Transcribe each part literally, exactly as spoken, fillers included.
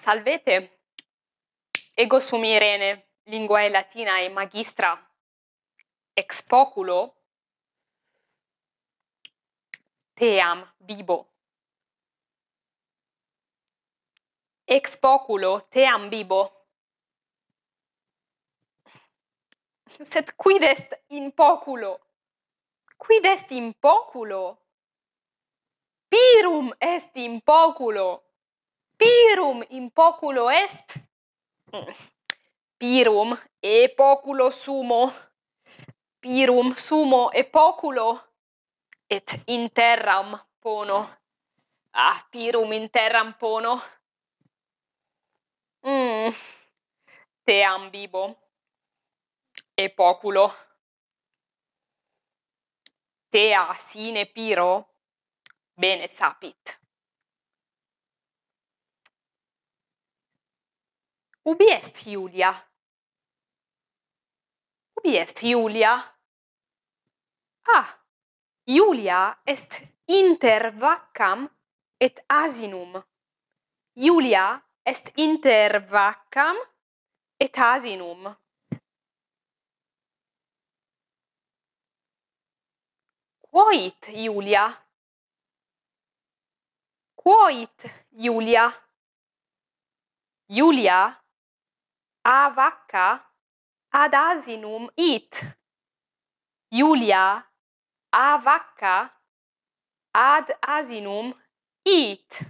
Salvete. Ego sum Irene, linguae latinae magistra. Ex poculo team bibo. Ex poculo team bibo. Sed quid est in poculo? Quid est in poculo? Pirum est in poculo. Pirum in poculo est. Mm. Pirum e poculo sumo. Pirum sumo e poculo. Et in terram pono. Ah, pirum in terram pono. Mm. Team bibo. E poculo. Tea sine piro, bene sapit. Ubi est Iulia? Ubi est Iulia? Ah, Iulia est inter vaccam et asinum. Iulia est inter vaccam et asinum. Quo it, Iulia? Quo it, Iulia? Iulia a vacca ad asinum it. Iulia a vacca ad asinum it.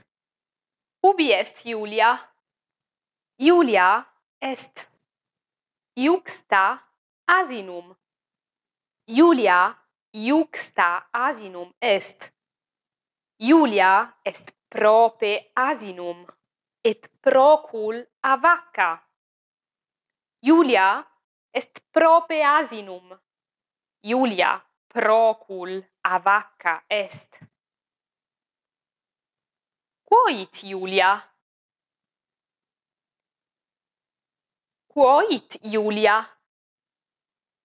Ubi est Iulia? Iulia est iuxta asinum. Iulia iuxta asinum est. Iulia est prope asinum, et procul a vacca. Iulia est prope asinum. Iulia procul a vacca est. Quo it, Iulia? Quo it, Iulia?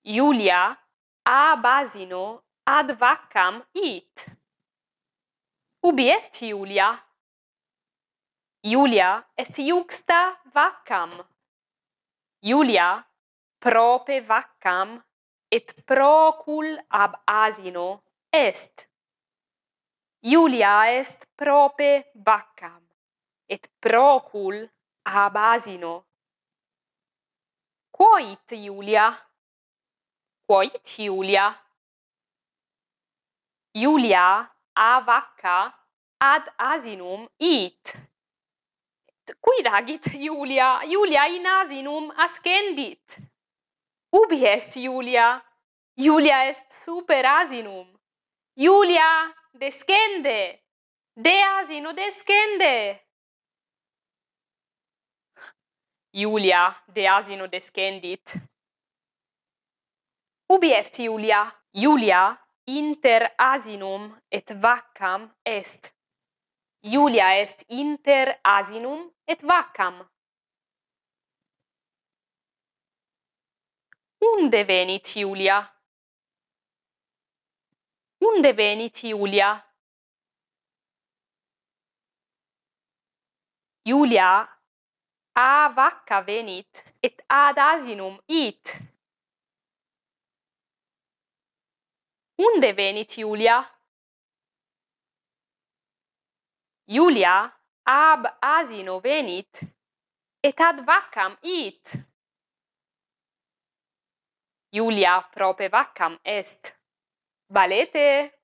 Iulia ab asino ad vaccam it. Ubi est Iulia? Iulia est iuxta vaccam. Iulia prope vaccam et procul ab asino est. Iulia est prope vaccam et procul ab asino. Quo it, Iulia? Quo it, Iulia? Iulia a vacca ad asinum it. Quid agit Iulia? Iulia in asinum ascendit. Ubi est Iulia? Iulia est super asinum. Iulia descende. De asino descende. Iulia de asino descendit. Ubi est Iulia? Iulia inter asinum et vaccam est. Iulia est inter asinum et vaccam. Unde venit Iulia? Unde venit Iulia? Iulia a vacca venit et ad asinum it. Unde venit Iulia? Iulia ab asino venit et ad vaccam it. Iulia prope vaccam est. Valete!